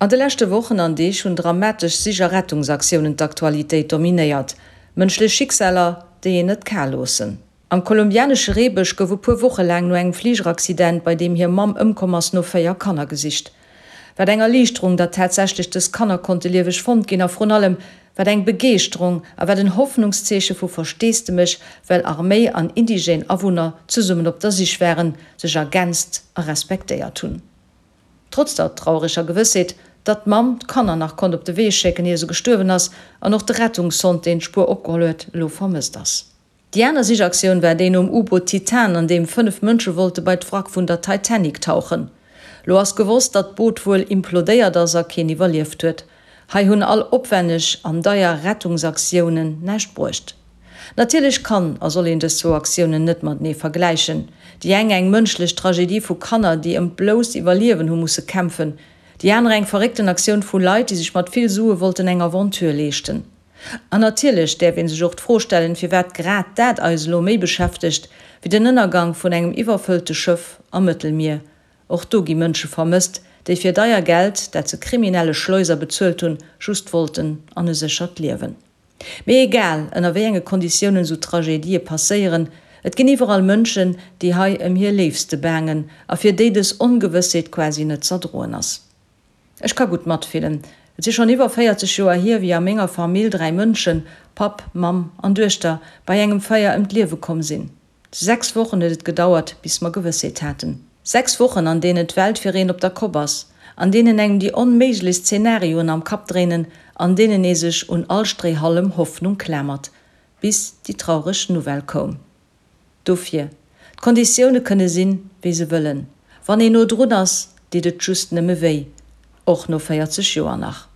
An de leschte Wochen an Deeg hunn dramatesch Sich a Rettungsaktiounen d'Aktualitéit dominéiert. Mënschlech Schicksaler, déi een net kal loossen. Am kolumbianesche Reebësch gouf e puer Woche laang no engem Fligeraccident, bei deem hir Mamm ëmkomm ass, no 4 Kanner gesicht. Wat eng Erliichterung, datt tatsächlech dës Kanner konnte lieweg fonnt ginn a vrun allem, wat eng Begeeschterung a wat en Hoffnungszeeche vu Versteesdemech, well Arméi an indigène Awunner zesummen op der Sich waren, sech ergänzt a respektéiert hunn. Trotz der traureger Gewëssheet, datt d'Mamm d'Kanner nach konnt op de Wee schécken, ier se gestuerwen ass, an och de Rettungshond, deen d'Spuer opgeholl huet, elo vermësst ass. Déi aner Sichaktioun war déi nom U-Boot Titan, an deem 5 Mënsche wollte bei d'Wrack vun der Titanic tauchen. Lo ass gewosst, datt d'Boot wuel implodéiert ass a keen iwwerlieft huet. Hei hunn all opwänneg an deier Rettungsaktiounen näischt bruecht. Natierlech kann a soll een dës zwou Aktiounen net matenee vergläichen. Déi eng eng mënschlech Tragedie vu Kanner, déi ëm d'blousst Iwwerliewen hu musse kämpfen, déi aner eng verréckten Aktioun vu Leit, déi sech mat vill Sue wollten eng Aventure leeschten. An natierlech däerf ee sech och d'Fro stellen, firwat grad dat eis elo méi beschäftegt wéi den Ënnergang vun engem iwwerfëllte Schëff am Mëttelmier. Och do gi Mënsche vermësst, déi fir deier Geld, dat se kriminelle Schleuser bezuelt hunn, just wollten an e séchert Liewen. Mee egal, ënner wéi enge Konditiounen esou Tragedië passéieren, et ginn iwwerall Mënschen, déi hei ëm hir Léifste baangen a fir déi dës Ongewëssheet quasi net z'erdroen ass. Ech ka gutt matfillen. Et si schonn iwwer 40 Joer hier, wéi a menger Famill 3 Mënschen, Papp, Mamm an Duechter, bei engem Feier ëm d'Liewe komm sinn. 6 Wochen huet et gedauert, bis mer Gewëssheet haten. 6 Wochen, an deenen d'Welt fir een op der Kopp ass, an deenen engem déi onméiglechst Zenarioen am Kapp dréinen, an deenen ee sech un all Stréihallem Hoffnung klamert, bis déi traureg Nouvelle koum. Dofir, d'Konditioune kënne sinn, wéi se wëllen, wann een no drun ass, deet et just nëmme wéi, och no 40 Joer nach.